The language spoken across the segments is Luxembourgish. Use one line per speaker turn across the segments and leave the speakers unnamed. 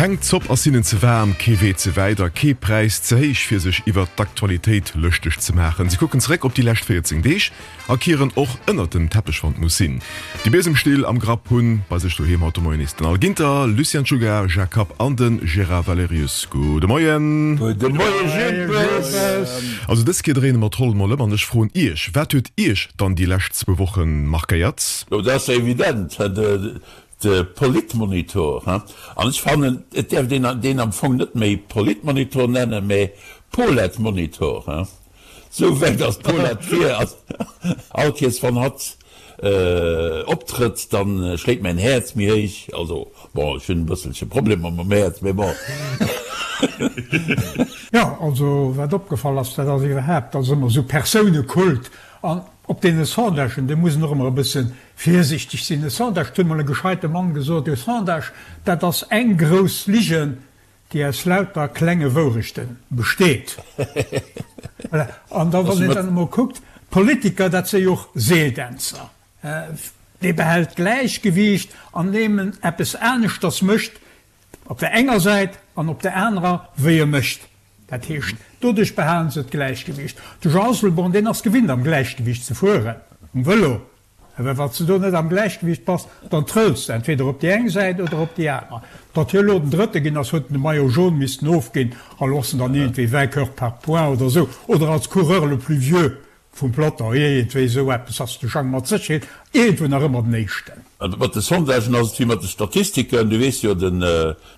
Keng Zopp ass hinnen ze waarm, kee Wee ze wäit a kee Präis ze héich fir sech iwwert d'Aktualitéit lëschteg ze maachen. Si kucken zeréck op déi lescht 14 Deeg a kieren och ënnert dem Teppech wann et muss sinn. Déi Biesemstill am Grapp hunn bei sech doheem haut de Moien nees den Al Ginter, Lucien Czuga, Jacques Kapp an de Gérard Valerius. Gudde Moien!
Gudde Moie Jippes!
Also dës Kéier dréine mer d'Roll mol ëm an ech froen Iech, Wat huet Iech dann déi lescht zwou Woche markéiert?
Jo, dat ass jo evident, de Politmonitor. An ech fannen, et däerft een deen am Fong net méi Politmonitor nennen, mä Poletmonitor. Sou wäit ass d'Paulette vir. All Kees wann hatt optrëtt, dann schléit mäin Häerz méi héich. Also bon, ech hunn e bësselche Problemer mam Häerz, mee bon.
Jo, also wat opgefall ass, dat ass iwwerhaapt, dass ëmmer esou Persounekult an op deene Sondagen, do muss een och ëmmer e bësse virsichteg sinn. E Sondage, et huet mol e gescheite Mann gesot, e Sondage, dat ass eng grouss Ligen, déi aus lauter klenge Wourechte besteet. Voilà. An da wann een dann emol kuckt, d'Politiker, dat si jo och Seeldänzer. Dee behält d'Gläichgewiicht, andeem en eppes aneschters mécht op der enger Säit an op der anerer, wéi e mécht. Dat heescht, doduerch behalen se d'Gläichgewiicht. De Jean Asselborn, deen ass gewinnt am Gläichgewiicht ze fueren, um Vëlo. Well wann s de do net am Gläichgewicht bass, dann trëlls de entweder op déi eng Säit oder op déi aner. Datt hie elo den Drëtte ginn ass, huet en de Maillot jaune missten ofginn a lo ass en dann iergendwéi Vainqueur par points oder esou oder als Coureur le plus vieux vum Peloton, iergendwéi esou eppes ass de Jang mat Sécherheet iergendwou nach ëmmer den Éischten.
Mat de Sondagen ass et wéi mat de Statistiken. Du weess jo, den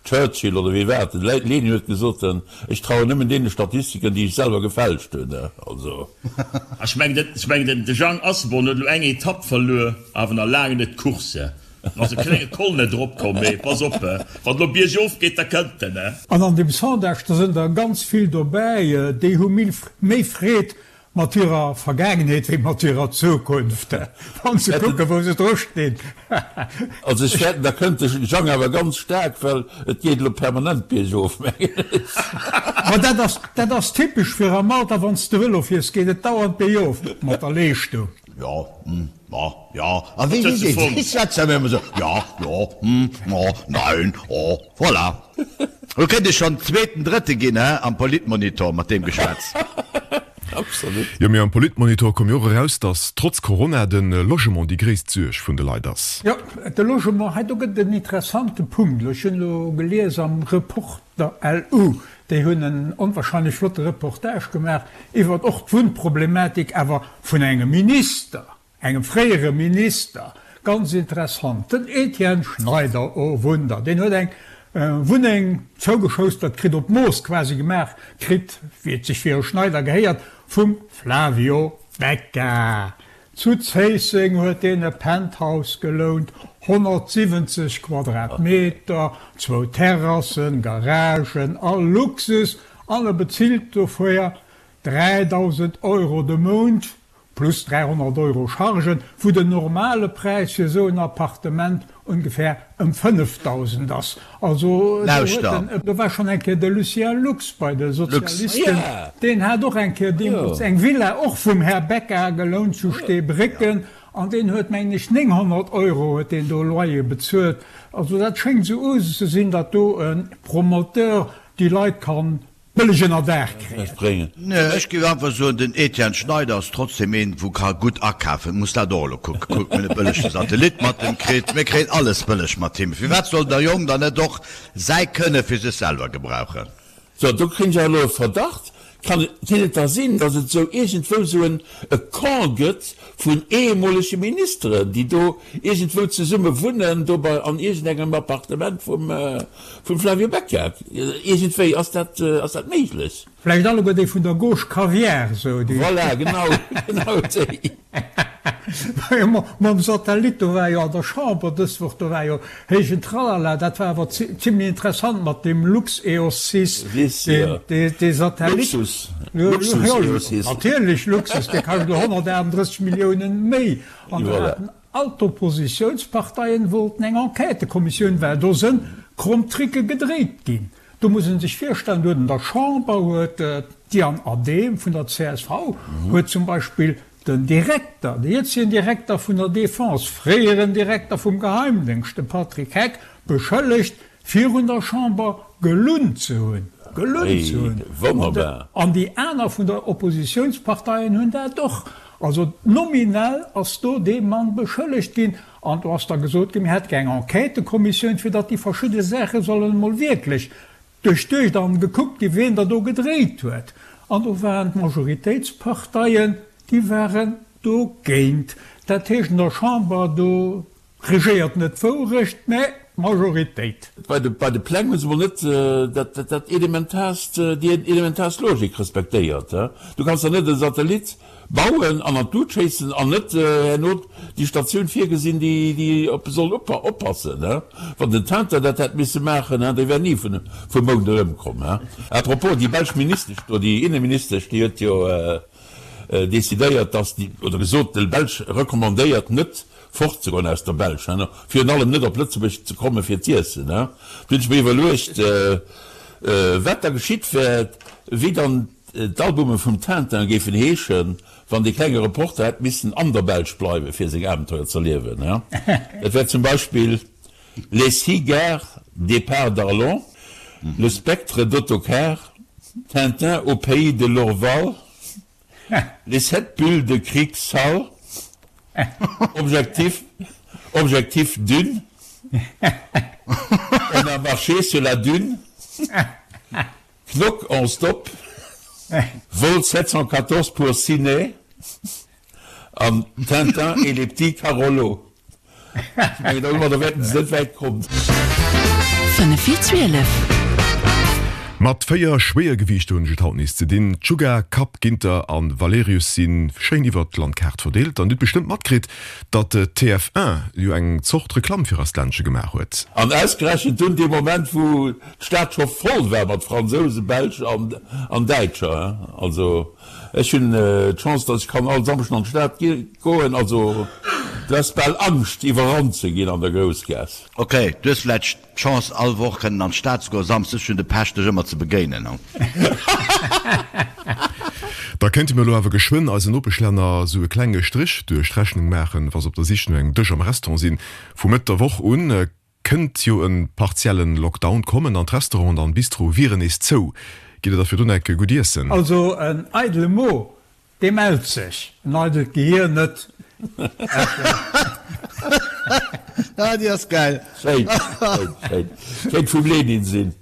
Churchill oder wie war et, de Lenin huet gesot, Ech trauen nëmmen deene Statistiken, déi ech selwer gefälscht hunn. Also.
Ech mengen, de Jang Asselborn huet elo eng Etapp verluer, awer nach laang net d'Course. En ass e klenge Col net eropkomm, mee pass op, wann elo biergof geet, da kënnt en.
An an deem Sondage, do sënn der ganz vill dobäi, déi hu méi Freed Mat hirer Vergaangenheet wéi mat hirer Zukunft, wann se kucken, wou se dru stinn.
Also ech fäerten, da kënnt de Jang awer ganz staark, well et geet elo permanent biergof, mengen ech.
Ma dat ass, dat ass typesch fir am Alter, wann s de Vëlo fiers, geet et dauernd biergof mat der Leeschtung.
Jo, hm, ma, ja, a wéi, wéi, wéi, wéi schwätzt der ëmmer esou, ja, jo, hm, ma, nein, oh, voilà. Lo kéint ech schonn zweeten, drëtte ginn, he, am Politmonitor mat deem Geschwätz.
Absolut.
Jo, mee am Politmonitor koum jo och eraus, datt trotz Corona de Logement déi gréisst Suerg vun de Leit ass.
Jo, de Logement, hei do gëtt et en interessante Punkt. Elo, ech hunn elo gelies am Reporter LU, déi hunn en onwahrscheinlech flotte Reportage gemaach iwwert och d'Wunnproblematik, awer vun engem Minister. Engem fréiere Minister, ganz interessant, den Etienne Schneider, oh Wunder, deen huet eng Wunneng zougeschoustert kritt, op Mooss quasi gemaach kritt, wéi et sech fir e Schneider gehéiert, vum Flavio Becca. Zu Zéisseng huet deen e Penthouse gelount, 170 Quadratmeter, zwou Terrassen, Garagen, all Luxus, an e bezilt dofir 3.000 Euro de Mount. Plus 300 Euro Chargen, wou den normale Präis fir esou en Appartement ongefähr ëm 5.000 ass. Also do huet
den,
do war schonn eng Kéier de Lucien Lux bei de Sozialisten, deen hat och eng Kéier deemools eng Villa, och vum Här Becca gelount zu Steebrécken, an deen huet, mengen ech, 900 Euro huet deen do Loyer bezuelt. Also dat schéngt esou Usus ze sinn, datt do e Promoteur déi Leit kann Bëlleg ënner Daach kréien.
Nee, ech géif einfach soen, den Etienne Schneider ass trotzdem een, wou ka gutt akafen. Muss dat och elo kucken. Kuck, mir hunn e bëllege Satellit mat em kritt. Mir kréien alles bëlleg mat him. Firwat soll der Jong dann net och säi Kënne fir sech selwer gebrauchen?
So, do kréien ech awer elo e Verdacht. Kann et, kéint et da sinn, datt et esou iergendwou esou en e Camp gëtt vun ehemolege Ministeren, déi do iergendwou zesumme wunnen, do bei an iergendengem Appartement vum, vum Flavio Becca? Iergendwéi, ass dat, ass dat méiglech?
Vläicht alleguer déi vun der Gauche Caviar, esou déi.
Voilà, genau, genau déi.
Mam Satellit, do war jo an der Chamber dës Woch, do war jo héijen Tralala, dat war awer zimlech interessant mat deem LuxEOS 6, dee Satellit.
Luxus, Luxus EOS 6.
Natierlech Luxus, dee kascht elo 138 Milliounen méi. An do haten all d'Oppositiounsparteien wollten eng Enquêtëkommissioun, well do sënn kromm Tricke gedréit ginn. Do muss ee sech virstellen, do huet an der Chamber huet d'Diane Adehm vun der csv huet zum Beispill den Direkter, de jëtzegen Direkter vun der Defense, fréieren Direkter vum Geheimdéngscht, de Patrick Heck, beschëllegt. Virun der Chamber gelunn ze hunn. Gelunn ze hunn.
Wonnerbar.
An déi aner vun der Oppositiounsparteien hunn dat och. Also nominell ass do dee Mann beschëllegt ginn. An do ass da gesot ginn, mir hätte gär eng Enquêtëkommissioun, fir datt déi verschidde Saache sollen emol wierklech duerchduecht an gekuckt ginn, wien der do gedréit huet. An do waren d'Majoritéitsparteien, déi waren dogéint. Dat heescht, an der Chamber, do regéiert net d'Wourecht, mä d'Majoritéit.
Bei de, bei de Pläng hu se mol net dat, dat elementaarst, déi elementaarst Logik respektéiert. Du kanns der net e Satellit bauen an an d'Lut schéissen an net herno déi Statioun virgesinn, déi, déi op e soll oppassen. Wann den Tintin dat hätt misse maachen, dee wär ni vun, vum Mound erëmkomm. À propos, déi belsch Ministesch do, déi Inneministesch, déi huet jo decidéiert, dass déi, oder gesot, de Belsch recommandéiert net fortzegoen aus der Belsch, virun allem net op Lëtzebuerg ze komme fir z'iessen. Do hunn ech mir iwwerluecht, wat da geschitt wär, wéi dann d'Albume vum Tintin géifen heeschen, wann dee klenge Reporter hätt missen an der Belsch bleiwen, fir seng Abenteuer z'erliewen. Dat wär zum Beispill Les six gares départ d'Arlon, Le spectre d'autocar, Tintin au pays de l'Orval, Les 7 bulles de cric sale, Objectif, Objectif Dune, On a marché sur la dune, Knock en stop, Vol 714 pour Ciné an Tintin et les petits Carolos. Ech mengen, domadder wäerten se net wäit kommen.
5 vir 12. Mat 4 Schwéiergewiichter hunn ech et haut nees ze dinn. D'Sugar, Kapp, Ginter an Valerius si schéin iwwert d'Landkaart verdeelt. An dir hutt bestëmmt matkritt, datt TF1 jo eng Zort Reklamm fir eist Ländche gemaach huet.
An ausgerechent dunn dee Moment, wou d'Stad scho voll war mat Fransousen, Belsch an Däitscher. Also ech hunn d'Chance, datt ech kann all Samschden an d'Stad goen. Also du häss bal Angscht iwwerrannt ze ginn an der Groussgaass.
Ok, du hues vläicht d'Chance all Woch kënnen an d'Stad ze goen, Samsdes hunn de Pech dech ëmmer ze begéinen.
Da kéinte mir elo awer geschwënn eisen Nopeschlänner sou e klenge Strich duerch d'Rechnung maachen, wa se op der Sich no engem Dësch am Restaurant sinn. Vu Mëtt der Woch un kënnt jo e partiellen Lockdown kommen an d'Restauranten an Bistroe wieren nees zou. Gitt der da virdrun enke gutt iessen?
Also en eidele Mo Dee mellt sech, en eidelt Gehier net.
Ah, déi ass gäil.
Schéin, schéin, schéin. Kéint vum Lenin sinn.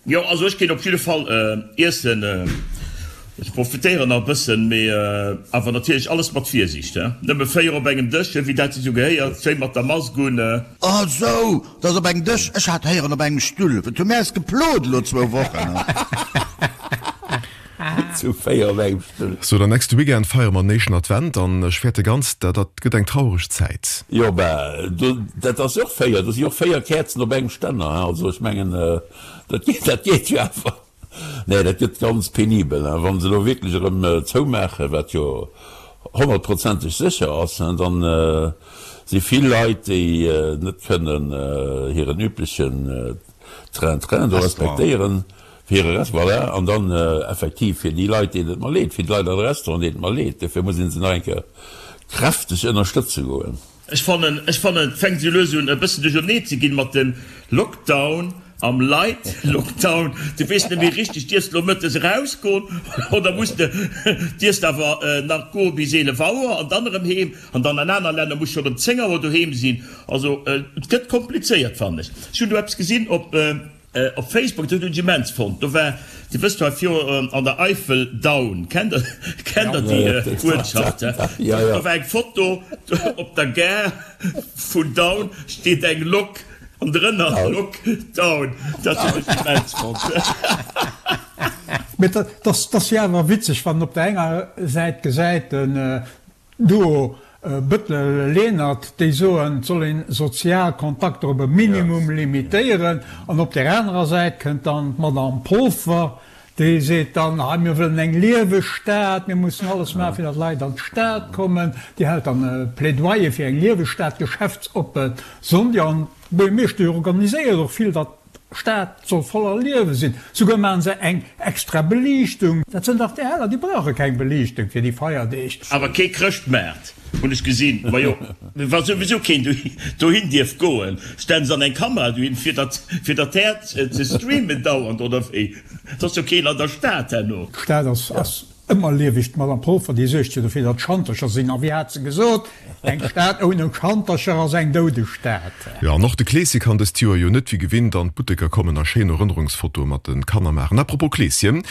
Jo, also ech ginn op jidde Fall iessen. Ech profitéieren nach e bëssen, mee awer natierlech alles mat Virsiicht, he. Nëmme 4 op engem Dësch, wéi dat sech esou gehéiert, schéi mat der Mask un.
Ah sou, dat ass op engem Dësch. Ech hat héieren op engem Stull. Et hu mir eis geplot elo zwou Wochen.
Zu 4 op engem Stull.
So, den nächste Weekend feiere mer den éischten Advent an ech fäerte ganz, dat dat gëtt eng traureg Zäit.
Jo, bah, do, dat ass jo och 4, do si jo och 4 Käerzen op engem Stänner, hein, also ech mengen, dat geet, dat geet jo awer. Nee, dat gëtt ganz penibel, hein, wa se elo wierklech erëm zoumaachen, wat jo honnertprozenteg sécher ass, hein, dann si vill Leit, déi net kënnen hiren üblechen Train-train do respektéieren, Fir hire Rest, voilà. An dann effektiv fir déi Leit, deenen et mer leed, fir d'Leit an de Restauranten, deenen et mer leed. Dofir muss ee se nach eng Kéier kräfteg ënnerstëtze goen.
Ech fannen, ech fannen, et fänkt esou lues un e bëssen duerchernee ze ginn mat dem Lockdown am Light Lockdown. Du weess net méi richteg, dierfs de lo mëttes erausgoen oder muss de, dierfs de awer nach goe bis 11 Auer an dann erëm heem. An dann an aner Länner muss schonn ëm 10 Auer doheem sinn. Also et gëtt komplizéiert, fannen ech. Ech hunn do eppes gesinn op. Op Facebook, dat hunn ech immens fonnt, do war, Dir wësst jo hei viru an der Eifel, Daun, kennt der, kennt der déi Uertschaft? Do war eng Foto, op der Gare vun Daun steet eng Lok an drënner Lok Daun. Dat hunn ech immens fonnt.
Mee dat ass jo awer witzeg, wann een op der enger Säit gesäit, den Duo Bëttel-Lenert, déi soen, et soll een sozial Kontakter op e Minimum limitéieren, an op där anerer Säit kënnt dann d'Madame Polfer, déi seet dann, hei mir wëllen eng lieweg Stad, mir mussen alles maachen, fir datt Leit an d'Stad kommen. Déi hält dann e Plädoyer fir eng lieweg Stad, geschäftsoppe Sonndeg. An d'Buergermeeschtesch organiséiert och vill, datt D'Stad soll voller Liewe sinn. Souguer maachen se eng extra Beliichtung. Dat sënn dach déi Heller, déi brauche keng Beliichtung fir déi Feierdeeg.
Awer kee Chrëschtmaart. Hunn ech gesinn. Majo, wa souwisou keen dohin dierf goen, stellen se dann eng Kamera dohin, fir dat, fir dat Häert ze streamen dauernd, oder wéi? Et ass jo keen an der Stad herno.
D'Stad ass, ass ëmmer lieweg. D'Madame Polfer, déi suergt jo dofir, datt Schantercher sinn. A wéi hat se gesot, Eng Stad ouni Schantercher ass eng doudeg Stad.
Jo, an och de Kleeschen kann dëst Joer jo net wéi gewinnt an d'Butteker kommen a schéin Erënnerungsfotoe mat de Kanner maachen. À propos Kleeschen,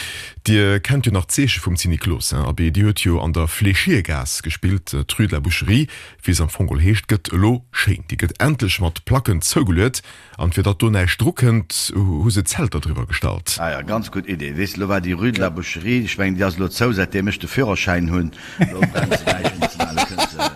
Dir kennt jo nach d'Zeeche vum Zinniklos, hein? Abee, déi huet jo an der Fléchiergaass gespillt. D'Rue de la Boucherie, wéi se am Fong geholl heescht, gëtt elo schéin. Déi gëtt endlech mat Placken zougeluet. An fir datt do näischt dru kënnt, hu se Zelter driwwer gestallt.
Ah ja, ganz gutt Idee. Weess de, lo war déi Rue de la Boucherie, ech mengen, déi ass elo zou, säitdeem ech de Führerschäin hunn. Elo brennt se näischt méi ze maachen. Elo kënnt se,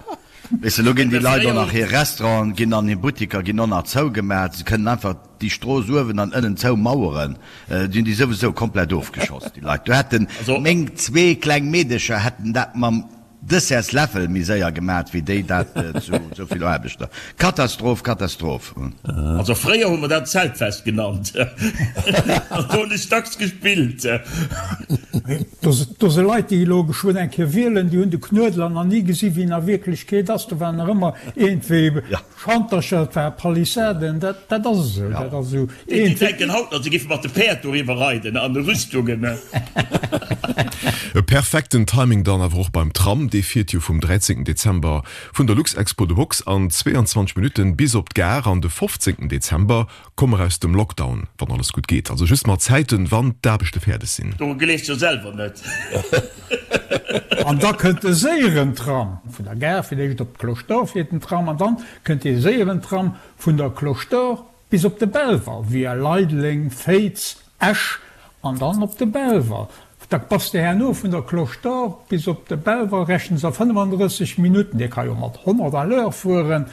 weess de, elo ginn déi Leit och nach hir Restauranten ginn an hir Buttiker ginn och nach zougemat. Se kënnen einfach déi Strooss uewen an ënnen zoumaueren. Déi hunn déi souwisou komplett ofgeschoss, déi Leit. Do hätten meng zwee kleng Meedecher hätten dat mam Dessertsläffel méi séier gemat wéi déi dat zu sou vill Aarbechter. Katastroph, Katastroph.
Also fréier hu mer dat Zeltfest genannt an do hunn ech dacks gespillt.
Do si Leit déi elo geschwënn eng Kéier wielen, déi hunn de Knuedler nach ni gesi wéi en a Wierklechkeet ass. Do waren nach ëmmer iergendwéi Schantercher, et war Palissaden, dat dat ass esou, dat ass esou
Déi een. denken haut nach, se géife mat de Päerd doriwwer reiden an de Rüstungen.
E perfekten Timing dann awer och beim Tram, dee fiert jo vum 13 Dezember vun der Luxexpo de Box an 22 Minutten bis op d'Gare an de 15 Dezember Komme mer aus dem Lockdown, wann alles gutt geet. Also just mat Zäiten, wann d'Aarbechte fäerdeg sinn.
Doru gleefs jo selwer net.
An da kënnt de séieren Tram vun der Gare, fir d'éischt op d'Cloche d'Or fiert den Tram, an dann kënnt dee séieren Tram vun der Cloche d'Or bis op de Belval, via Leideleng, Féiz, Esch an dann op de Belval. Da bass de herno vun der Cloche d'Or bis op de Belval, rechnen se a 35 Minutten. Dee ka jo mat 100 à l'heure fueren.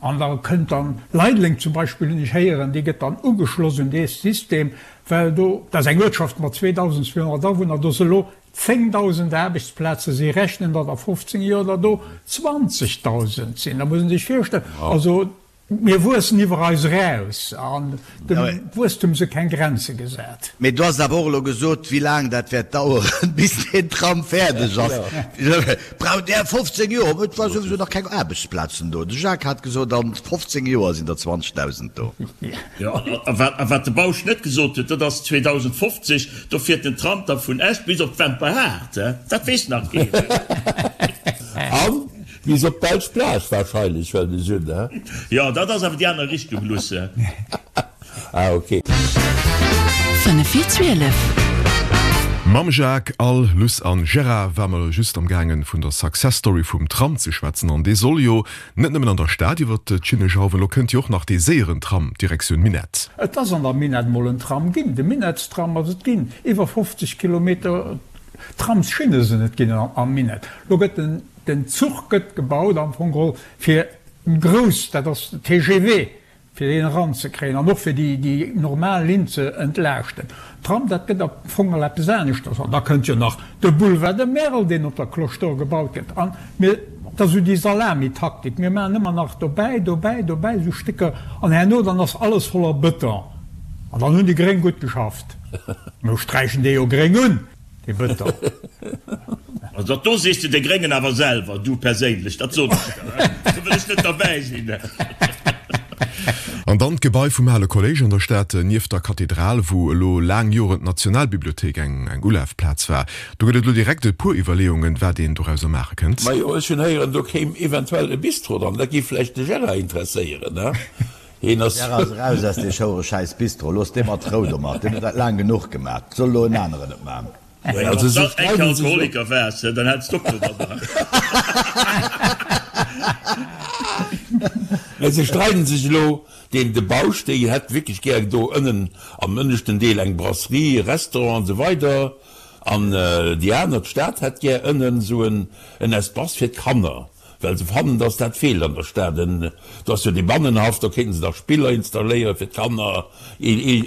An da kënnt dann Leideleng zum Beispill, hunn ech héieren, déi gëtt dann ugeschloss un dee System, well do, dat ass eng Uertschaft mat 2.200 Awunner, do si elo 10.000 Aarbechtsplazen, si rechnen, datt a 15 Joer der do 20.000 sinn. Da muss ee sech virstellen, also mir wuessen iwwer eis eraus an Dem Wuesstum si keng Grenze gesat.
Mee du has awer och elo gesot, wéi laang dat wäert daueren, bis deen Tram fäerdeg ass. Braucht Där 15 Joer? Et war souwisou nach keng Aarbechtsplazen do. De Jacques hat gesot, a 15 Joer sinn der 20.000 do.
Jo, a wat de Bausch net gesot huet, dat ass 2050, do fiert den Tram da vun Esch bis op d'Wemperhaart. Dat weess nach keen.
An Bis op d'belsch Plage wahrscheinlech, well ech un, he?
Jo, dat ass awer déi aner Richtung, Lusse.
Ah, ok.
5 vir 12. Mam Jacques, Al, Luss an Gérard war mer just am gaangen vun der Success Story vum Tram ze schwätzen an dee soll jo net nëmmen an der Stad iwwert d'Schinne jauwen, lo kënnt jo och nach dee séieren Tram Direktioun Minett.
Et ass an der Minett mol en Tram ginn, de Minettstram ass et ginn, iwwer 50 Kilometer Tramsschinne sinn et ginn am Minett. Lo gëtt den Den Zuch gëtt gebaut am Fong geholl fir grouss, dat ass de TGV, fir deen eranzekréien an och fir déi normal Linn ze entlaaschten. Tram, dat gëtt am Fong geholl eppes aneschters. An da kënnt jo nach de Boulevard de Merl, deen op der Cloche d'Or gebaut gëtt. An mir, dat ass esou déi Salamitaktik, mir maachen ëmmer nach dobäi, dobäi, dobäi esou Stécker an herno dann ass alles voller Bëton. An dann hunn déi Gréng gutt geschafft. Mir sträichen dee jo gréng un. Dee Bëton.
Also dat do sees de de Gréngen awer selwer, du perséinlech, dat soen ech der, do wëll ech net derbäi sinn.
An dann d'Gebai vum ale Kolléisch an der Stad, nieft der Kathedral, wou elo laang Joren d'Nationalbibliothéik eng Ulafplaz war. Do gëtt et elo direkt e puer Iwwerleeungen, wat een dorauser maache kënnt.
Majo, ech hunn héieren, do kéim eventuell e Bistro dran. Dat géif vläicht de Gérard interesséieren, ne? Heen ass.
Gérard ass eraus aus dee schouere schäiss Bistro. Looss dee mat Rou domat. Deen huet dat laang genuch gemat. Soll elo en aneren et man.
Also se streiden sech elo. Alkoholiker waars, dann hätts de och domadder.
Mä se streiden sech elo. Deen de Bausch, déi hätt wierklech gär do ënnen am ënneschten Deel eng Brasserie, e Restaurant an esou weider. An déi aner, d'Stad, hätt gär ënnen esou en Espace fir d'Kanner. Well se fannen, dass dat feelt an der Stad. En, do ass jo dee Bannenhaff, do kéinten se da Spiller installéiere fir d'Kanner,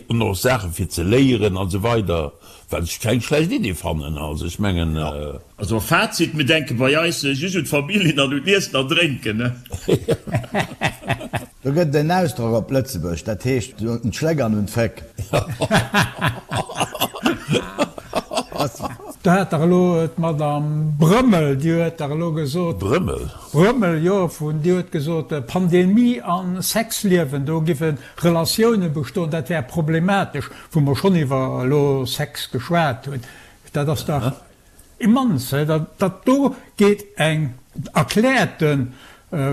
an och Saache fir ze léieren an esou weider, wat ech keng schlecht Idee fannen. Also ech mengen.
Also Fazit, mir denke bei eis just un d'Familljen an un d'Iessen an Drénken.
Do gëtt et en Ausdrock op Lëtzebuerg, dat heescht un d'Schléck an un d'Féck.
Do hat dach elo d'Madame Brömmel, déi huet dach elo gesot.
Brömmel?
Brömmel, jo, vun, déi huet gesot, Pandemie a Sexliewen, do giffe Relatioune bestoen, dat wär problematesch, wou mer schonn iwwer elo Sex geschwat hunn. Dat ass dach immens, he, dat, dat do geet eng erkläerte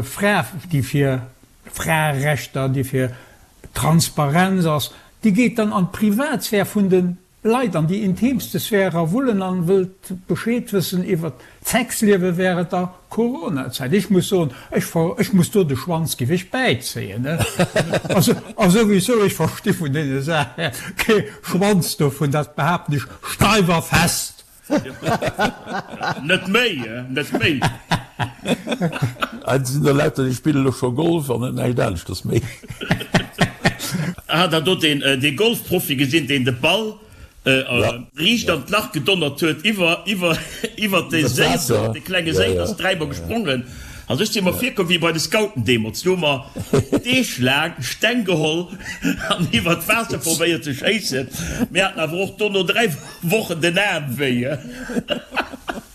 Fra, déi fir Fraerechter, déi fir Transparenz ass, déi geet dann an d'Privatsphär vun de Leit, an déi intimste Sphär erawullen an wëllt Bescheed wëssen iwwert d'Sexliewe während der Coronazäit. Ech muss soen, ech ver, ech muss do de Schwanz giff ech bäizéien, ne? Also, a souwisou, ech versti vun deene Saache kee Schwanz dovun, dat behaapten ech steif a fest.
Net méi, net méi.
Et sinn der lauter, déi spillen elo scho Golf an net näischt aneschters méi.
Hat der do deen dee Golfprofi gesinn, deen de Ball riicht an d'Lach gedonnert huet iwwer iwwer iwwer de Séi, de klenge Séi, ass dräimol gesprongen. Also ech si mer virkomm wéi bei de Scouten deemools, do hu mer Deeg laang Steng geholl an iwwer d'Waasser probéiert ze schéissen. Mir haten awer och dono 3 Wochen den Aarm wéi.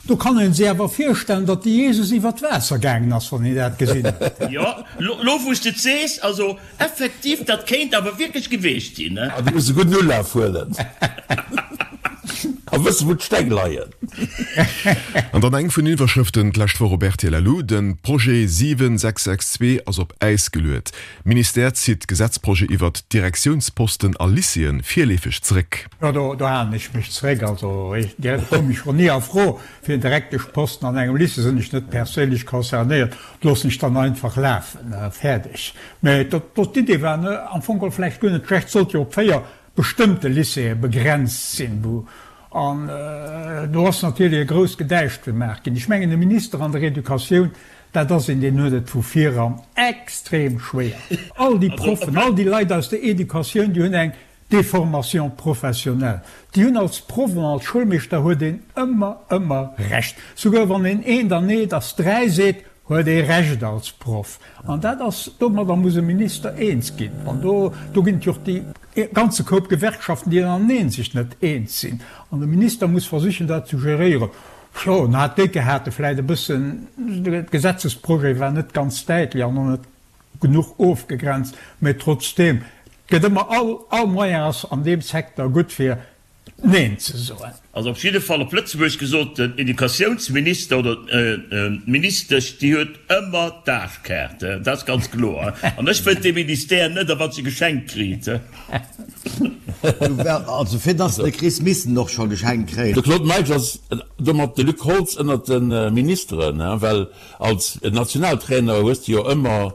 Do kann een sech awer virstellen, datt de Jesus iwwer d'Waasser gaangen ass, wann een dat gesinn huet.
Jo, lo wou s de et sees, also effektiv, dat kéint awer wierklech geweecht sinn.
Ah, du muss e gudden Ulaf huelen a wëssen, wou d'Steng leien.
An dann eng vun den Iwwerschrëften d'lescht Woch op rtl Lu, De Projet 7662 ass op Äis geluet. Ministère zitt Gesetzprojet iwwert d'Direktiounsposten a Lycéeë virleefeg zeréck.
Jo, do do halen ech mech zeréck. Also direkt komm ech schonn ni a Fro fir en Direkteschposten an engem Lycée, sinn ech net perséinlech concernéiert, loossen ech dann einfach lafen, fäerdeg. Mä dat do, d'Idee war am Fong geholl vläicht guer net schlecht, sollt jo op 4 bestëmmte Lycéeë begrenzt sinn, wou an do ass natierlech e grousst Gedäisch gemaach ginn. Ech mengen, e Minister an der Educatioun, dat ass een, deen huet et vu viran extrem schwéier. All déi Proffen, all déi Leit aus der Educatioun, déi hunn eng Déformation professionnelle. Déi hunn als Proff an als Schoulmeeschter huet een ëmmer, ëmmer Recht. Souguer wann een eent an eent ass dräi seet, huet ee Recht als Proff. An dat ass, domadder muss e Minister eens ginn. An do, do ginn et jo och déi ganze Koup Gewerkschaften, déi ënnereneen sech net eens sinn. An de Minister muss versichen, dat ze geréieren. Jo, en hat décke hate vläicht e bëssen, de Gesetzesprojet war net ganz däitlech an och net genuch ofgegrenzt, mä trotzdeem, et gëtt ëmmer, all, all Moyen ass an deem Secteur gutt fir Neen ze soen.
Also op jidde Fall op Lëtzebuergesch gesot, den Educatiounsminister oder d'Ministesch, déi huet ëmmer d'Aarschkaart, dat ass ganz kloer. An ech wëllt dee Ministère net, a wat se geschenkt kriit.
Also fir dass de kriss, misst en och scho geschenkt kréien.
De Claude Meisch ass domat de Luc Holtz ënnert de Ministeren, well Als Nationaltrainer hues de jo ëmmer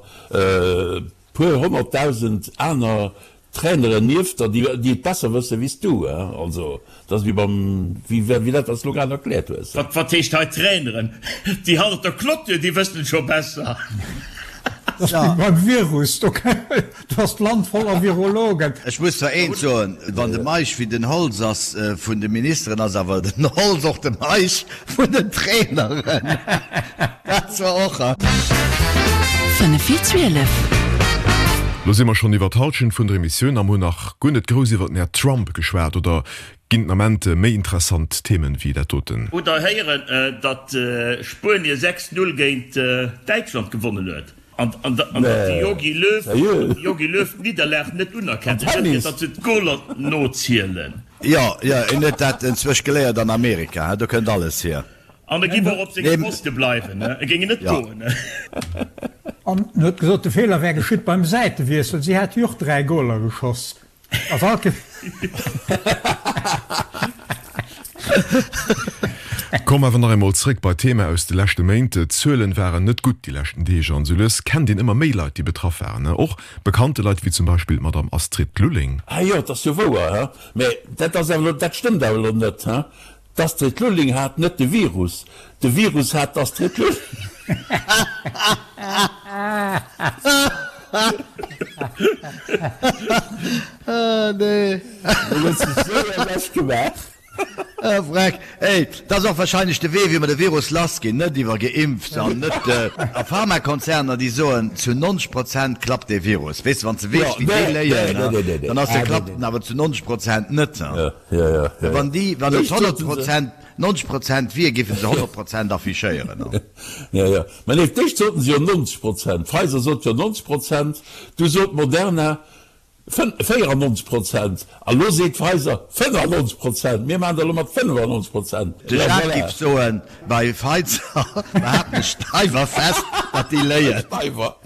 puer 100.000 aner Traineren nieft der, déi et besser wësse wéi s du. Also, dat ass wéi beim, wéi dat, wat s de elo grad erkläert hues.
Wat, wat heescht hei Traineren? Déi hannert der Clôture, déi wëssen et scho besser.
Dat ass wéi beim Virus, do Do ass d'Land voller Virologen.
Ech muss zwar eent soen, wann de Meisch wéi den Holtz ass vun de Ministeren, ass awer den Holtz och de Meisch vun den Traineren. Dat zwar och.
5 vir 12. Lo si mer schonn iwwer d'Hallschent vun der Emissioun a mer hunn nach guer net grouss iwwer den Här Trump geschwat. Oder ginn den Ament méi interessant Themen wéi dat doten?
Hutt der héieren, datt Spuenie 6, 0 géint Däitschland gewonnen huet? An datt de Jogi Löw, Jogi Löw d'Nidderlag net unerkennt, et gëtt datt se d'Goler nozielen.
Jo, jo, en huet dat enzwousch geléiert an Amerika, do kënnt alles hier.
An e giff och op sengem Poste bleiwen, e géing net goen.
An en huet gesot, de Feeler wär geschitt beim Säitewiessel, si hätte jo och 3 Goler geschoss.
Komm awer nach eemol zréck bei d'Thema aus de leschte Méint. D'Zuelen waren net gutt déi leschten Deeg an esou lues kennt een ëmmer méi Leit, déi betraff waren. Och bekannte Leit wéi zum Beispill d'Madame Astrid Lulling.
Ah jo, et ass jo wouer, he? Mä dat ass awer elo, dat stëmmt awer elo net, he? D'Astrid Lulling hat net de Virus, de Virus hat d'Astrid Lulling.
Ah nee.
Do huet se sou ewech gemaach.
Ah vreck. Ey, dat ass och wahrscheinlech de Wee wéi mer de Virus lass ginn, net iwwer geimpft an net a Pharmakonzerner déi soen zu 90 Prozent klappt dee Virus. Weess de wann s de weess wéi déi léien, dann ass de klappt en awer zu 90 Prozent net. Wann déi wann et 100 Prozent. 90 Prozent wier, géife se 100 Prozent affichéieren.
Jo, jo. Mä nee, d'éischt soten se jo 90 Prozent. Pfizer sot jo 90 Prozent, du sot Moderna 94 Prozent a lo seet Pfizer 95 Prozent. Mir maachen dat elo mat 95 Prozent.
De Jacques giff soen, bei Pfizer behaapten ech steiwer fest, datt déi léien.
Steiwer.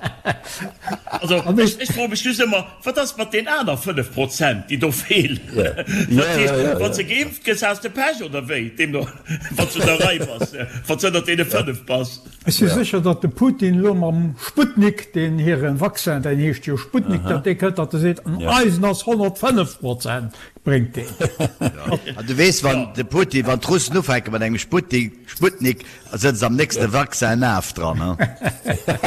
Also, ech froe mech just ëmmer, Wat ass mat den aner 5 Prozent, déi do feelen? Dat heescht, wann s de geimpft gëss, has de Pech, oder wéi? Deemno, wann s du der Rei bass, wann s ënnert deene 5 bass.
Ech si sécher, datt de Putin elo mam Sputnik, deen hire Vaccin, deen heescht jo Sputnik, datt dee kënnt, datt e seet, an eisen ass 105 Prozent, bréngt deen.
An du weess, wann de Putin, wann d'Russen ufänke mat engem Sputnik, sëtzt am nächste Vaccin Naf dran, he?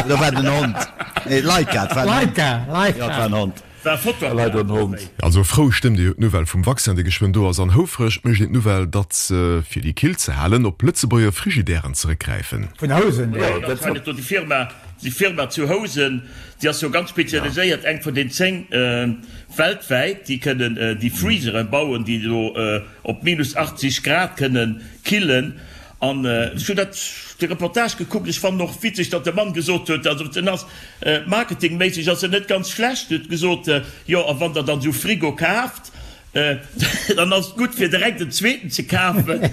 Oder war et en Hond? Nee, Laika, et war en Hond.
Laika, Laika.
Jo, et war en Hond.
War Fotoapparat
Leider en Hond. Also frou stëmmt ee jo d'Nouvelle vum Vaccin, dee geschwënn do ass, an houfreg mécht een d'Nouvelle, datt se, fir déi kill ze halen, op Lëtzebuerger Frigidairen zeréckgräifen.
Vun Housen,
Jo, dat war net do déi Firma, déi Firma zu Housen, déi ass jo ganz spezialiséiert, eng vun den 10 weltwäit, déi kënnen déi Freezere bauen, déi do op minus 80 Grad kënnen killen. An ech hunn dat, de Reportage gekuckt. Ech fannen och witzeg, datt de Mann gesot huet, also en ass marketingméisseg ass en net ganz schlecht, huet gesot, jo a wann der dann esou Frigo kaaft, dann ass et gutt fir direkt en zweeten ze kafen,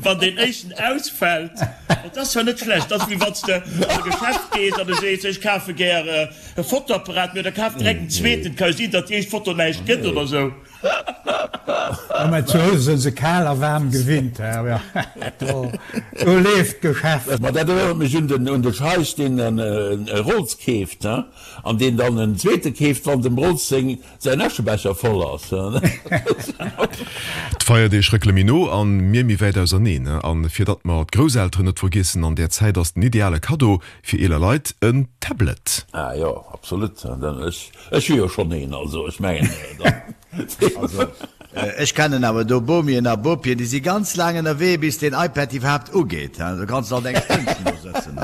wann deen éischten ausfält. Dat ass zwar net schlecht, dat ass wéi wann s de an e Geschäft gees an du sees, ech kafe gär e Fotoapparat, mee da kaf direkt en zweeten, et ka jo sinn, datt déi éischt Foto näischt gëtt oder esou.
Jo, mä zu Housen sinn se kal a waarm gewinnt, hä? Do leeft d'Geschäft.
Ma dat erënnert mech un den un de Scheich, deen e Rolls keeft, he, an deen dann en zweete keeft, wann dem Rolls seng säin Äschebecher voll ass, he.
D'Feierdeeg réckele méi no an mir méi wäit auserneen. An fir datt mer d'Grousselteren net vergiessen an där Zäit ass den ideale Kaddo fir eeler Leit en Tablet.
Ah jo, absolut. Ech Ech hu jo schonn een, also ech mengen dann.
Also ech kennen awer do Bomien a Bopien, déi si ganz laang ënnerwee bis deen iPad iwwerhaapt ugeet. Do kanns de alt eng Stënnchen do sëtzen.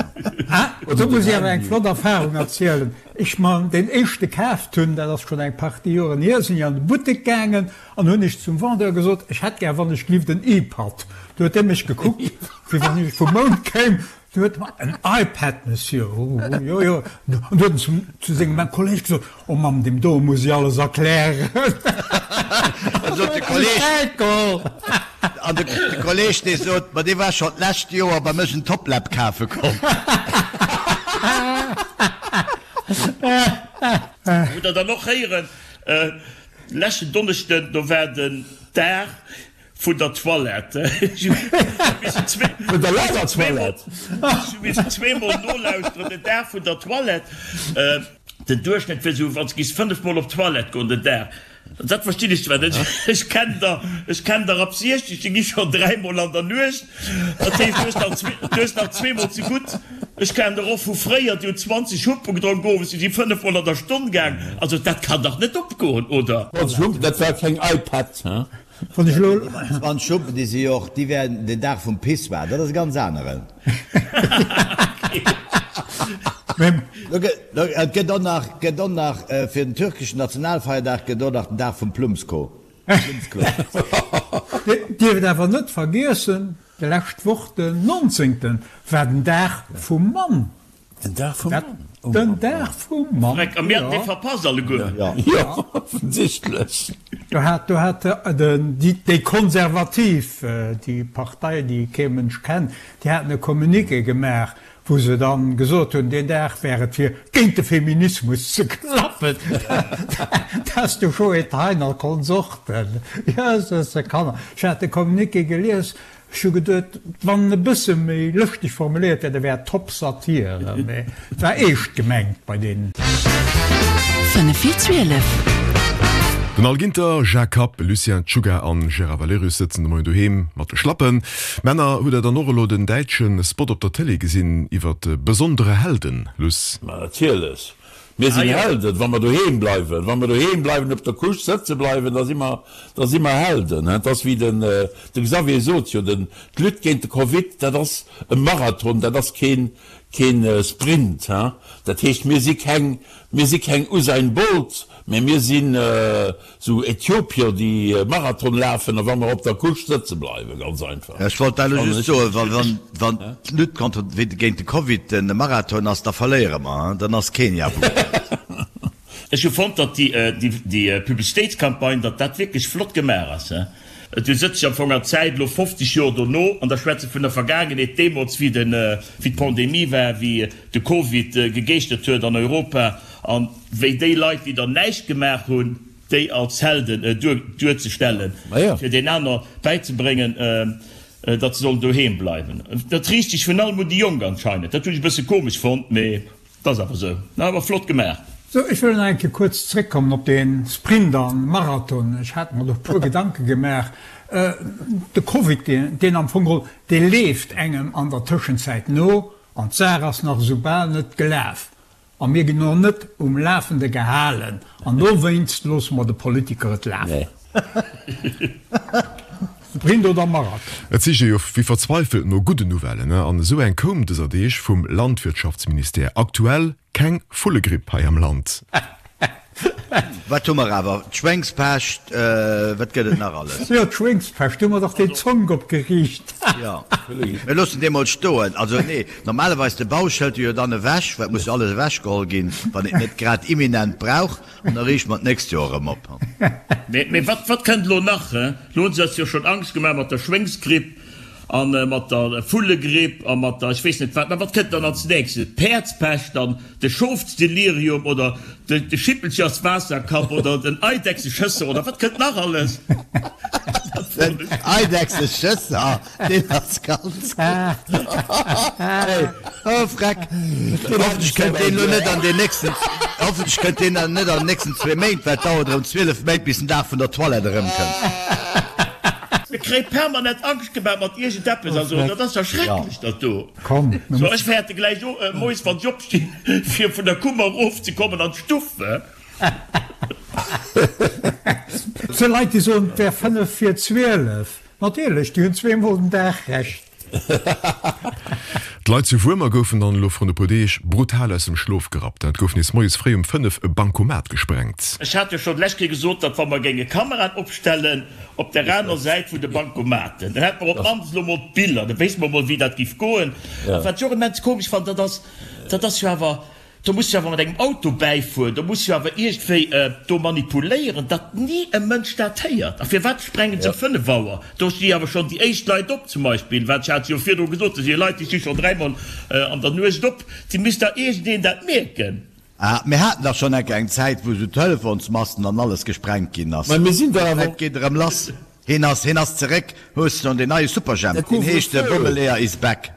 Ah, do muss ech awer eng flott Erfahrung erzielen. Ech mer deen éischte kaaft hunn, dat ass schonn eng Partie Joren hier, sinn ech an de Buttek gaangen an hunn ech zum Vendeur gesot, ech hätt gär wann ech glift en iPad. Du huet dee mech gekuckt, wéi wann ech vum Mound kéim. Du huet en en iPad, Monsieur. Oh, jo, jo. An du huet en zum, zu sengem Kolleg gesot, Oh Mamm, deem do muss ech alles erklären.
An sot de Kolleg, an de Kolleg, dee sot, Ma dee war schonn d'lescht Joer bei mech en Toplap kafe komm.
Hutt Der dann och héieren, leschten Donneschden, do war den Dag Vun der Toilette.
Vun der Lagertoilette.
Ech hu missen zweemol nolauschteren, den Dag vun der Toilette. Den Duerchschnëtt wier esou, wann s giss 5 mol op d'Toilette goen den Dag. Dat verstinn ech zwar net. Ech kennen der, ech kennen der ab 60, déi gi schonn dräimol an der Nuecht. Dat heescht, du hues nach zwee, du hues nach zweemol ze gutt. Ech kennen der och vu fréier, déi hunn 20 Humpen gedronk owes, déi si 5 mol an der Stonn gaang. Also dat kann dach net opgoen, oder?
20 Humpen, dat war keng iPad, he?
Wann ech elo.
20 Schuppen, déi si jo och, déi wären den Dag vum Pissoir, dat ass e ganz aneren. Et gëtt och nach, gëtt och nach fir den türkeschen Nationalfeierdag gëtt och nach den Dag vum Plummsko. Plummsklo.
Dierft awer net vergiessen, déi lescht Woch, den 19. war den Dag vum Mann.
Den Dag vum Mann?
Den Dag vum Mann,
jo. A mir haten dee verpasst alleguer.
Jo, offensichtlech.
Do hat, do hat den, déi, déi Konservativ, déi Partei, déi kee Mënsch kennt, déi haten e Communiqué gemaach, wou se dann gesot hunn, deen Dag wär et fir géint de Feminismus ze klappen. Dat ass de Joe Thein a Konsorten. Jösses, Kanner. Ech hat de Communiqué gelies, Ech hu geduet, wann en e bësse méi lëschteg formuléiert wär, da wär et top Satire, mee et war eescht gemengt bei deenen.
5 vir 12. Den Al Ginter, Jacques Kapp, Lucien Czuga an Gérard Valerius sëtzen de Moien doheem mat de Schlappen. Männer, hutt der dann och elo den däitsche Spot op der Télé gesinn iwwert besondere Helden, Luss?
Ma natierlech. Mir sinn Helden, wa mer doheem bleiwen. Wa mer doheem bleiwen, op der Couche sëtze bleiwen, da si mer, da si mer Helden. Et ass wéi den, de Xavier sot jo, den, d'Lutte géint de Covid, dat ass e Marathon, dat ass keen, keen Sprint. Dat heescht, mir si keng, mir si keng Usain Bolt. Mee mir sinn esou Äthiopier, déi Marathon lafen a wa mer op der Couche sëtze bleiwen, ganz einfach.
Ech wollt dat elo just soen, well wann d'Lutte contre, géint de Covid e Marathon ass, da verléiere mer, dann ass Kenia wuel.
Ech hu fonnt, datt déi Publicitéitscampagne, datt dat wierklech flott gemaach ass. Du sëtz ech am Fong an Zäit, elo 50 Joer dono, an da schwätze vun der Vergaangenheet, deemools wéi den, wéi d'Pandemie war, wéi de Covid gegeeschtert huet an Europa an wéi déi Leit, déi dann näischt gemaach hunn, déi als Helden duerzestellen, fir den aner bäizebréngen, datt se sollen doheem bleiwen. Dat riicht sech virun allem un déi Jonk anscheinend. Dat hunn ech e bësse komesch fonnt, mee. 't ass awer sou. Awer flott gemaach.
Sou, ech wëll nach eng Kéier kuerz zréckkommen op dee Sprint an Marathon. Ech hat mer do e puer Gedanke gemaach. De Covid, deen am Fong geholl, dee leeft engem an der Tëschenzäit no an d'Saach ass nach esou bal net gelaf a mir ginn och net um Lafende gehalen an dowéinst loosse mer de Politiker et lafen. Sprint oder Marathon?
Et sicht ee jo wéi verzweifelt no gudden Nouvellen, an esou eng koum dëser Deeg vum Landwirtschaftsministère, Aktuell keng Vullegripp hei am Land.
Wat hu mer awer? D'Schwéngspescht, wat gëtt et nach alles?
Jo, d'Schwéngspescht, do hu mer dach deen Zonk opgeriicht.
Jo, mir loossen dee mol stoen. Also nee, normalerweis de Bausch hëlt e jo dann ewech, well et muss jo alles ewechgeholl ginn, wann een et net grad imminent brauch. An da riichte mer d'nächst Joer erëm
op. Mee wat, wat kënnt elo nach? Elo hunn se eis jo schonn Angscht gemaach mat der Schwéngsgripp a mat der Vullegripp a mat der ech weess net wat. Mä wat kënnt dann als nächstes? D'Päerdspescht dann, de Schofsdelirium oder de Schippelcherswaasserkapp oder den Eidechseschësser oder wat kënnt nach alles?
Den Eidechseschësser, deen ass ganz gutt. Hey, oh Freck. Hoffentlech kënnt deen elo net an den nächsten, hoffentlech kënnt deen net an den nächsten zwee Méint, well et dauert erëm 12 Méint bis den Dag vun der Toilette erëmkënnt.
Mir kréie permanent Angscht gemaach mat iergendeppes, also dat ass jo schrecklech dat do. So ech fäerte gläich moies wann ech opstinn fir vun der Kummer erofzekommen an d'Stuff.
Et si Leit déi soen et wär 5 vir 12. Natierlech, déi hunn zweemol den Dag Recht.
D'Leit zu Wuermer goufen dann elo vrun e puer Deeg brutal aus dem Schlof gerappt. Et gouf nees moies fréi um 5 e Bancomat gesprengt.
Ech hat jo schonn d'lescht Kéier gesot, datt wa mer géinge Kameraen opstellen op där aner Säit vun de Bancomaten, dann hätte mer op d'mannst elo mol d'Biller, da wéisste mer mol wéi dat géif goen. A wat ech och immens komesch fannen, dat ass, dat ass jo awer, Do muss jo awer mat engem Auto bäifueren, do muss jo awer iergendwéi do manipuléieren, datt ni e Mënsch dat héiert. A firwat sprengen se um 5 Auer? Do sti awer schonn déi éischt Leit op zum Beispill, wat ech hat jo virdru gesot, do si Leit, déi sti schonn dräimol an der Nuecht op, déi misst dach iergendeen dat mierken.
Ah, mir haten dach schonn enke eng Zäit, wou esou Telefonsmasten an alles gesprengt ginn ass.
Mä mir sinn dach awer.
Et geet erëm lass. Hien ass, hien ass zeréck. Hues de schonn deen neie Superjhemp? Deen heescht de Bommeleeër is back.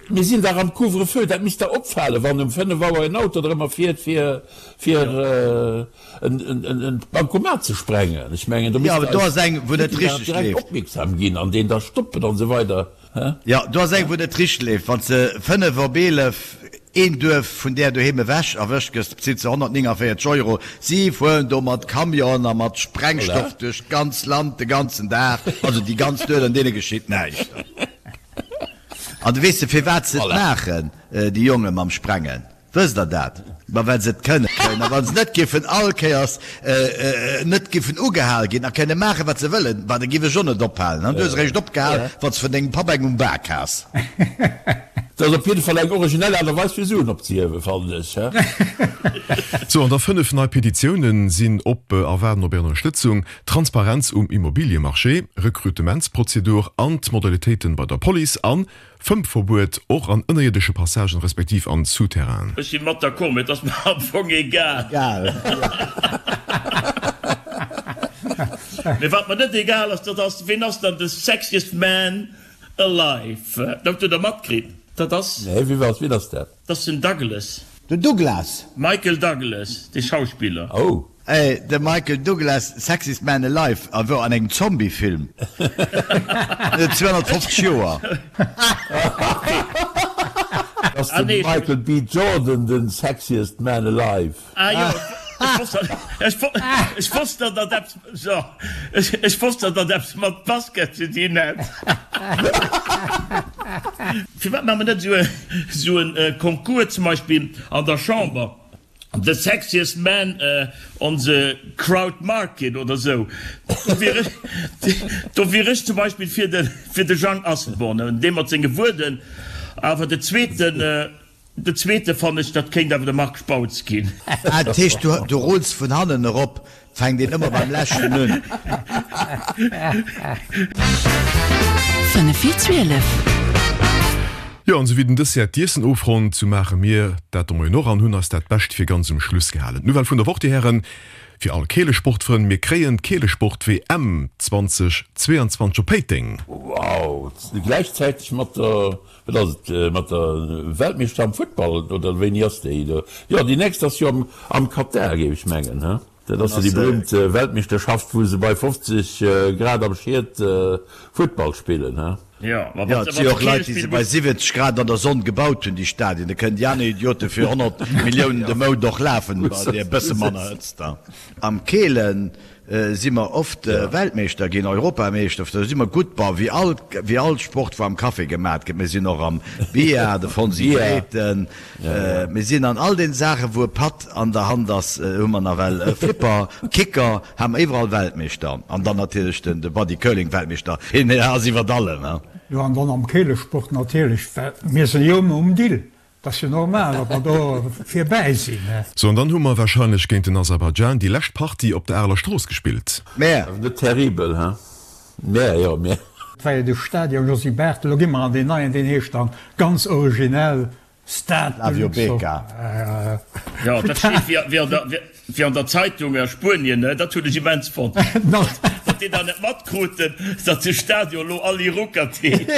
Mir sinn dach am Couvre-feu, dat misst der opfalen, wann um 5 Auer en Auto drëmmer fiert, fir en Bancomat ze sprengen. Ech mengen, do misst
eis Politiker
direkt opmierksam ginn an deen da stoppen an esou weider.
Jo, do ass eng, wou net richteg leeft. Wann s de 5 op 11 een Duerf vun där doheem ewech erwëscht gëss, bezilt se 149 Euro. Si fueren do mat Camion a mat Sprengstoff duerch d'ganz Land de ganzen Dag, also déi ganz Nuet, an deene geschitt näischt. An weess de firwat se et maachen, déi Jonge mam Sprengen? Wësst der dat? Ma well se et kënnen. A wa se net giffen all Kéiers net giffen ugehal ginn a kënne maachen, wat se wëllen, ma da giff ech och net ophalen. An du hues eréischt opgehal, wann s de vun dengem Papp eng um Bak has.
Dat ass op jidde Fall eng originell Aart a Weis fir Suen opzehiewen, fannen ech.
Sou, an da 5 nei Petitiounen sinn op a waarden op Är Ënnerstëtzung. Transparenz um Immobiliemarché, Rekrutementsprozedur an d'Modalitéiten bei der Police an Fëmmverbuet och an ënnerierdesche Passagen respektiv an Souterrainen.
Ech si mat d'accord, mee et ass mer am Fong egal. Mee wat mer net egal ass, dat ass, ween ass dann de sexiest man alive? Dat hutt der matkritt, dat ass.
Nee, wie ass, wien ass dat?
Dat ass den Douglas.
Den Douglas?
Michael Douglas, de Schauspiller.
Oh.
Ey, de Michael Douglas, Sexiest Man Alive, a wor an engem Zombie-Film. En huet 250 Joer.
Ass de Michael B. Jordan den Sexiest Man Alive?
Ah jo, ech wosst datt dat eppes, so, ech wosst datt dat eppes mat Basket ze dinn hätt. Firwat maache mer net esou e Concours zum Beispill an der Chamber? The sexiest man on the crowd market oder sou. Do wier ech, do wier ech zum Beispill fir de, fir de Jang Asselborn, dee mat senge Wuerden. Awer de zweeten, de zweete fannen ech, dat kéint awer de Marc Spautz ginn.
Ah, dat heescht, du, du rulls vun hannen erop, fänkt een ëmmer beim leschten un.
5 vir 12. Jo, an esou wéi den Dessert d'Iessen ofronnt, sou maache mir dat de Moien och an hunn eis dat Bescht fir ganz um Schluss gehalen. D'Nouvelle vun der Woch, Dir Hären, fir all Keelesportfrënn, Mir kréien d'Keelesport-WM 2022 op Péiteng!
Wow, gläichzäiteg mat der, wat ass et, mat der Weltmeeschter am Futtball, oder wéini ass déi? Jo, déi nächst ass jo am Katar, géif ech mengen, he? Dat ass jo déi berühmt Weltmeeschterschaft, wou se bei 50 Grad am Schied Futtball spillen, he?
Jo, et si och Leit, déi se bei 70 Grad an der Sonn gebaut hunn, déi Stadien. Da kënnen déi aner Idiote fir 100 Milliounen de Mount och lafen, bei där e bësse manner Hëtzt. Am Keelen si mer oft Weltmeeschter ginn, Europameeschter, do si mer gutt, bon, wéi all, wéi all Sport, wou am Café gemat gëtt. Mir sinn och am Billard, de Fonsi Grethen, mir sinn an all den Saachen, wou e Patt an der Hand ass, hu mer nawell Flipper, Kicker, ha mer iwwerall Weltmeeschter. An dann natierlech den, de Body Curling Weltmeeschter, hien ass iwwert allem, he.
Jo, an dann am Keelesport natierlech, well mir sinn jo ëmmer um Dill. 't ass jo normal, datt mer do virbäi sinn.
Sou, an dann hu mer wahrscheinlech géint den Aserbaidschan déi lescht Partie op der Areler Strooss gespillt.
Mä. Ass net terribel, he? Mä, jo, mä.
Et war jo de Stadion Josy Barthel, elo gi mer an deen neien, deen heescht dann ganz originell Stade de
Flavio
Luxembourg.
Becca.
Jo, dat steet wéi an der. Wéi an der Zeitung a Spuenien, dat hunn ech immens fonnt, datt déi dat net matkruten, datt de Stadion elo Ali Ruckert heescht.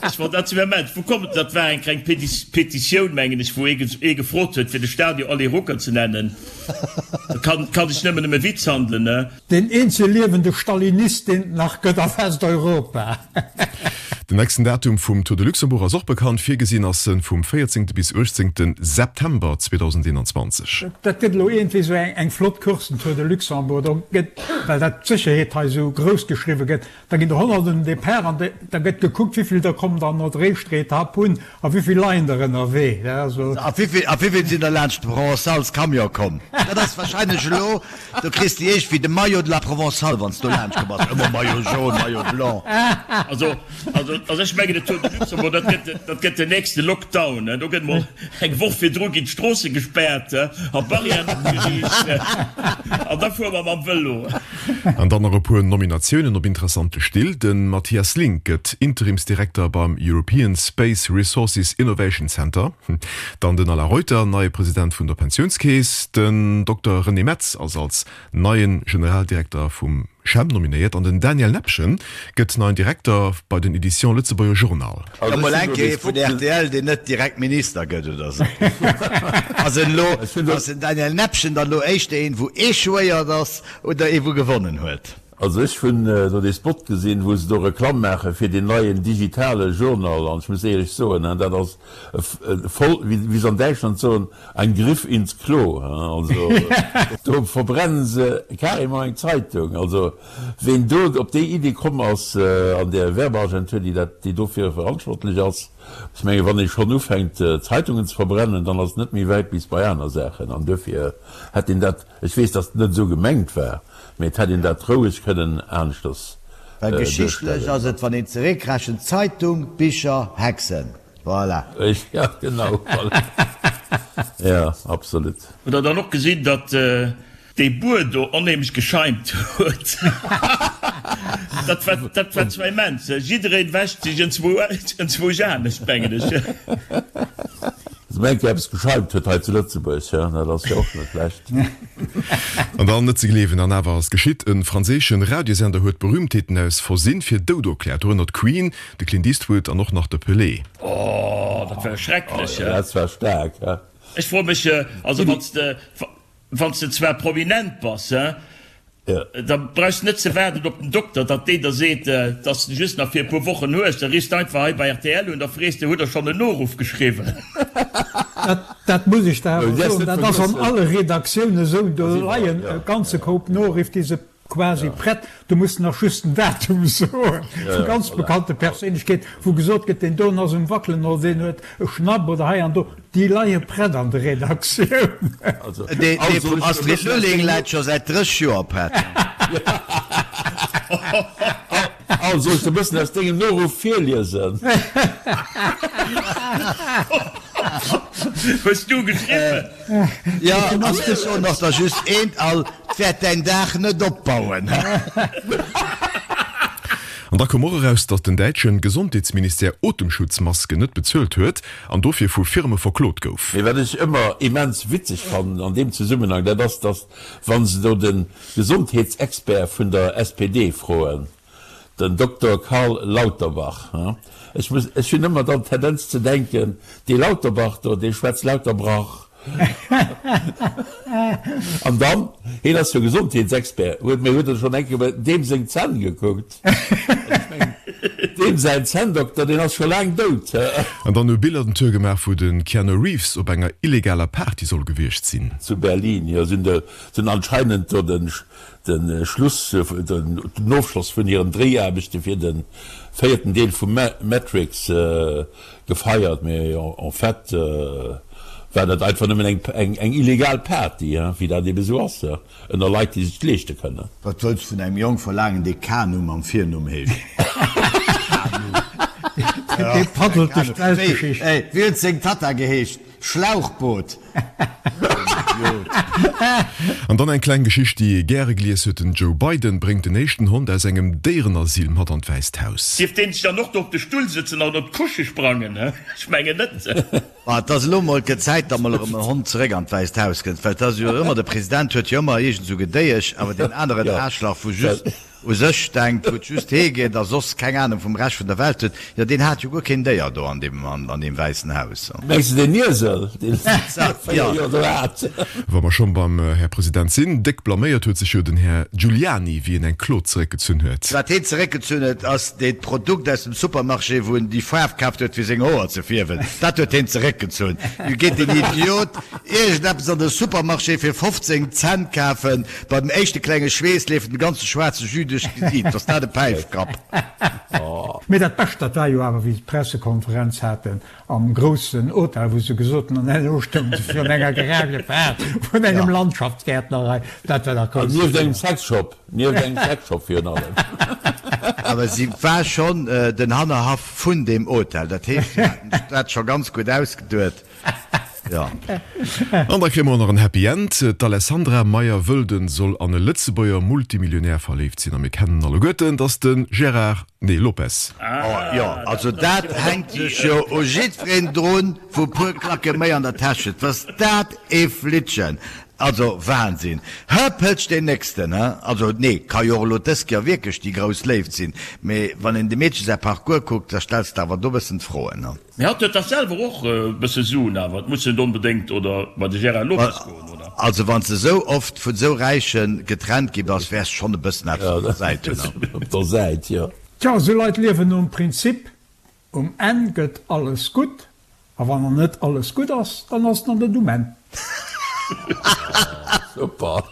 Ech fonnt dat immens. Wou komm, dat war eng kleng Petitioun, mengen ech, wou ee gefrot huet, fir de Stadion Ali Ruckert ze nennen. Dat ka sech nëmmen ëm e Witz handelen.
Deen eenzege liewende Stalinist, deen et nach gëtt a Westeuropa.
Den nächsten Datum vum Tour de Luxembourg ass och bekannt. Virgesinn ass en vum 14. bis 18. September 2021.
Dat gëtt elo iergendwéi esou eng flott Course, den Tour de Luxembourg. Do gëtt, well dat d'Sécherheet hei esou grouss geschriwwe gëtt, da ginn der Honnerten um Depart an da gëtt gekuckt, wéivill der kommen dann no der éischter Etapp un a wéivill leien der ënnerwee.
A wéivill sinn der laanscht de Provençals-Camion komm? Dat ass wahrscheinlech elo Do kriss de iergendwéi de Maillot de la Provençale, wann s do laanscht komm bass. Ëmmer Maillot jaune, Maillot blanc.
Also, also, also ech mengen, de Tour de Luxembourg, dat gëtt, dat gëtt den nächste Lockdown. Do gëtt mol eng Woch virdru ginn d'Stroosse gespaart a Barrièren opgeriicht an da fuere mer mam Vëlo.
An dann nach e puer Nominatiounen op interessante Still, De Mathias Link gëtt Interimsdirekter beim European Space Resources Innovation Center. Dann den Alain Reuter, neie President vun der Pensiounskeess. Den Dokter René Metz ass als neie Generaldirekter vum CHEM nominéiert an den Daniel Nepgen gëtt neien Direkter bei den Editions Lëtzebuerger Journal.
Da mol eng Kéier ee vun rtl, deen net direkt Minister gëtt oder sou. Ass en elo, ass den Daniel Nepgen dann elo éischter een, wou échouéiert ass oder ee wou gewonnen huet?
Also ech hunn do dee Spot gesinn, wou se do Reklamm maache fir deen neien digitale Journal an ech muss éierlech soen, dat ass voll, wéi se an Däitschland soen, ein Griff ins Klo. Also do verbrennen se carrément eng Zeitung. Also ween do op déi Iddi komm ass an där Werbeagentur, déi dat, déi dofir verantwortlech ass, ech menge wann ee schonn ufänkt Zeitungen ze verbrennen, dann ass et net méi wäit bis bei aner Saachen an duerfir hätt een dat, ech weess, datt et net esou gemengt war, Mee et hätt een dat roueg kënnen aneschters
Well geschichtlech ass et, wann een zeréckrechent, Zeitung, Bicher, Hexen. Voilà.
Ja, genau, voilà. Ja, absolut.
Hutt der dann och gesinn, datt dee Buer do onheemlech gescheimt huet? Dat war, dat war zwar immens. Jiddereen wäscht sech enzwousch anescht, mengen ech.
Dass mol eng Kéier eppes gescheimt huet hei zu Lëtzebuerg, jo, dat ass jo och net schlecht.
An dann, net ze gleewen, an awer ass geschitt, E franséische Radiosender huet Berühmtheeten aus Versinn fir dout erkläert, dorënner d'Queen, de Clint Eastwood an och nach de Pelé.
Oh, dat war schrecklech,
he? Dat war staark, he?
Ech froe mech, also wann s de, wann s de zwar prominent bass, he? Da brauchs de net ze waarden op den Dokter, datt deen der seet, datt s de just nach fir e puer Wochen hues. Da riffs de einfach hei bei rtl un, da frees de, Hutt der schonn en Noruff geschriwwen?
Dat muss ech der awer soen, dat ass an alle Redaktioune sou. Do leien e ganze Koup Noriff, déi se. quasi prett, do muss de nach just den Datum soen, vu ganz bekannte Perséinlechkeeten, wou gesot gëtt, deen doen ass um Wackelen oder deen huet e Schnapp oder hei an do, déi leie prett an der Redaktioun.
Dee vum Astrid Lulling läit scho säit 30 Joer prett.
Al, soll ech der bëssen aus dengem Noruff virliesen?
Hues du geschriwwen?
Jo, an ech soen och der just eent, Al, 't wäert däin Daach net opbauen.
An da koum och eraus, datt den däitschen Gesondheetsministère Otemschutzmasken net bezuelt huet an dofir vu Firme verklot gouf.
Mee wat ech ëmmer immens witzeg fannen an deem Zesummenhang, dat ass, datt wa se do de Gesondheetsexpert vun der SPD froen, den Dokter Karl Lauterbach, ech muss, ech hunn ëmmer dann d'Tendenz ze denken, dee Lauterbach do, dee schwätzt lauter Brach. An dann, hien ass jo Gesondheetsexpert, huet, mee huet e schonn eng Kéier bei deem seng Zänn gekuckt? Also ech mengen, deem säin Zänndokter, deen ass scho laang dout.
An dann hu Biller den Tour gemaach, wou de Keanu Reeves op enger illegaler Party soll gewiescht sinn.
Zu Berlin, jo, sinn de, sinn anscheinend do den De Schluss, den Ofschloss vun hiren Dréiaarbechte fir de véierten Deel vu Matrix gefeiert, mee en fait war dat einfach nëmmen eng illegal Party, wéi dat ebe sou ass ënner Leit, déi sech et leeschte kënnen.
Wat wëlls vun engem Jong verlaangen, dee Kanu mam Virnumm heescht? Kanu.
Dee paddelt duerch d'Weltgeschicht.
Wéi huet seng Tatta geheescht? Schlauchboot! Idiot.
An dann eng kleng Geschicht, déi ee gäre gelies huet, Den Joe Biden bréngt den éischten Hond aus engem Déierenasyl mat an d'Wäisst Haus.
Dierf deen sech dann och do op de Stull sëtzen an op d'Couche sprangen? Ech mengen net.
Ma et ass elo mol gëtt Zäit, datt mol erëm en Hond zeréck an d'Wäisst Haus kënnt, well et ass jo ëmmer, de President huet jo ëmmer iergend esou Gedéiesch, awer deen aneren Aarschlach, wou just u sech denkt, wou et just hee geet a soss keng Ahnung vum Rescht vun der Welt huet, jo deen hat jo guer keen Déier do an deem an deem Wäissen Haus.
Mengs de deen Iesel, deen se säit 4 Joer do hat?
Wa mer schonn beim Här President sinn, déck blaméiert huet sech jo den Här Giuliani, wéi en eng Klo zeréckgezunn huet.
Wat heen zeréckgezunn huet, ass deet Produkt aus dem Supermarché, wou en déi Faarf kaaft huet fir seng Hoer ze fierwen. Dat huet heen zeréckgezunn. Du geet deen Idiot iergendeppes an de Supermarché fir 15 Cent kafen, Bei dem éischte klenge Schweess leeft den ganze schwaarze Jus duerch d'Gesiit. Ass dat e Päifkapp?
Mee dat Bescht, dat war jo awer, wéi se d'Pressekonferenz haten am groussen Hotel, wou se gesot hunn, an herno stounge se virun enger Garage gepaart vun engem Landschaftsgäertner hei. Dat war dach
grouss. Nieft engem Sexshop, nieft engem Sexshop virun allem.
Awer si war schonn den Hannerhaff vun deem Hotel. Dat heescht, si haten sech dat scho ganz gutt ausgeduet.
Ja. An da kréie mer och nach en Happy End, D'Alessandra Meyer-Wölden soll an e Lëtzebuerger Multimillionär verléift sinn. A mir kennen alleguerten, dass de Gérard, nee, Lopez.
Oh jo, also dat hänkt sech jo u jiddwereen drun, wou puer Klacke méi an der Täsch huet. Was dat ee Flittchen! Also Wahnsinn! Hëppelch deen nächsten, he? Also nee, ka jo och elo dës Kéier wierklech déi grouss Léift sinn, mee wann een dem Meedche säi Parcours kuckt, da stells de awer do bëssen d'Froen, he?
Mee hatt huet dach selwer och e bësse Suen awer, et muss net onbedéngt oder bei de Gérard Lopez goen, oder?
Also wann s de sou oft vun sou Räichen getrennt gi bass, wäers schonn e bëssen eppes op der Säit hunn.
Op der Säit, jo.
Tja, esou Leit liewen nom Prinzip, um Enn gëtt alles gutt, a wann nach net alles gutt ass, dann ass et nach net um Enn.
Super!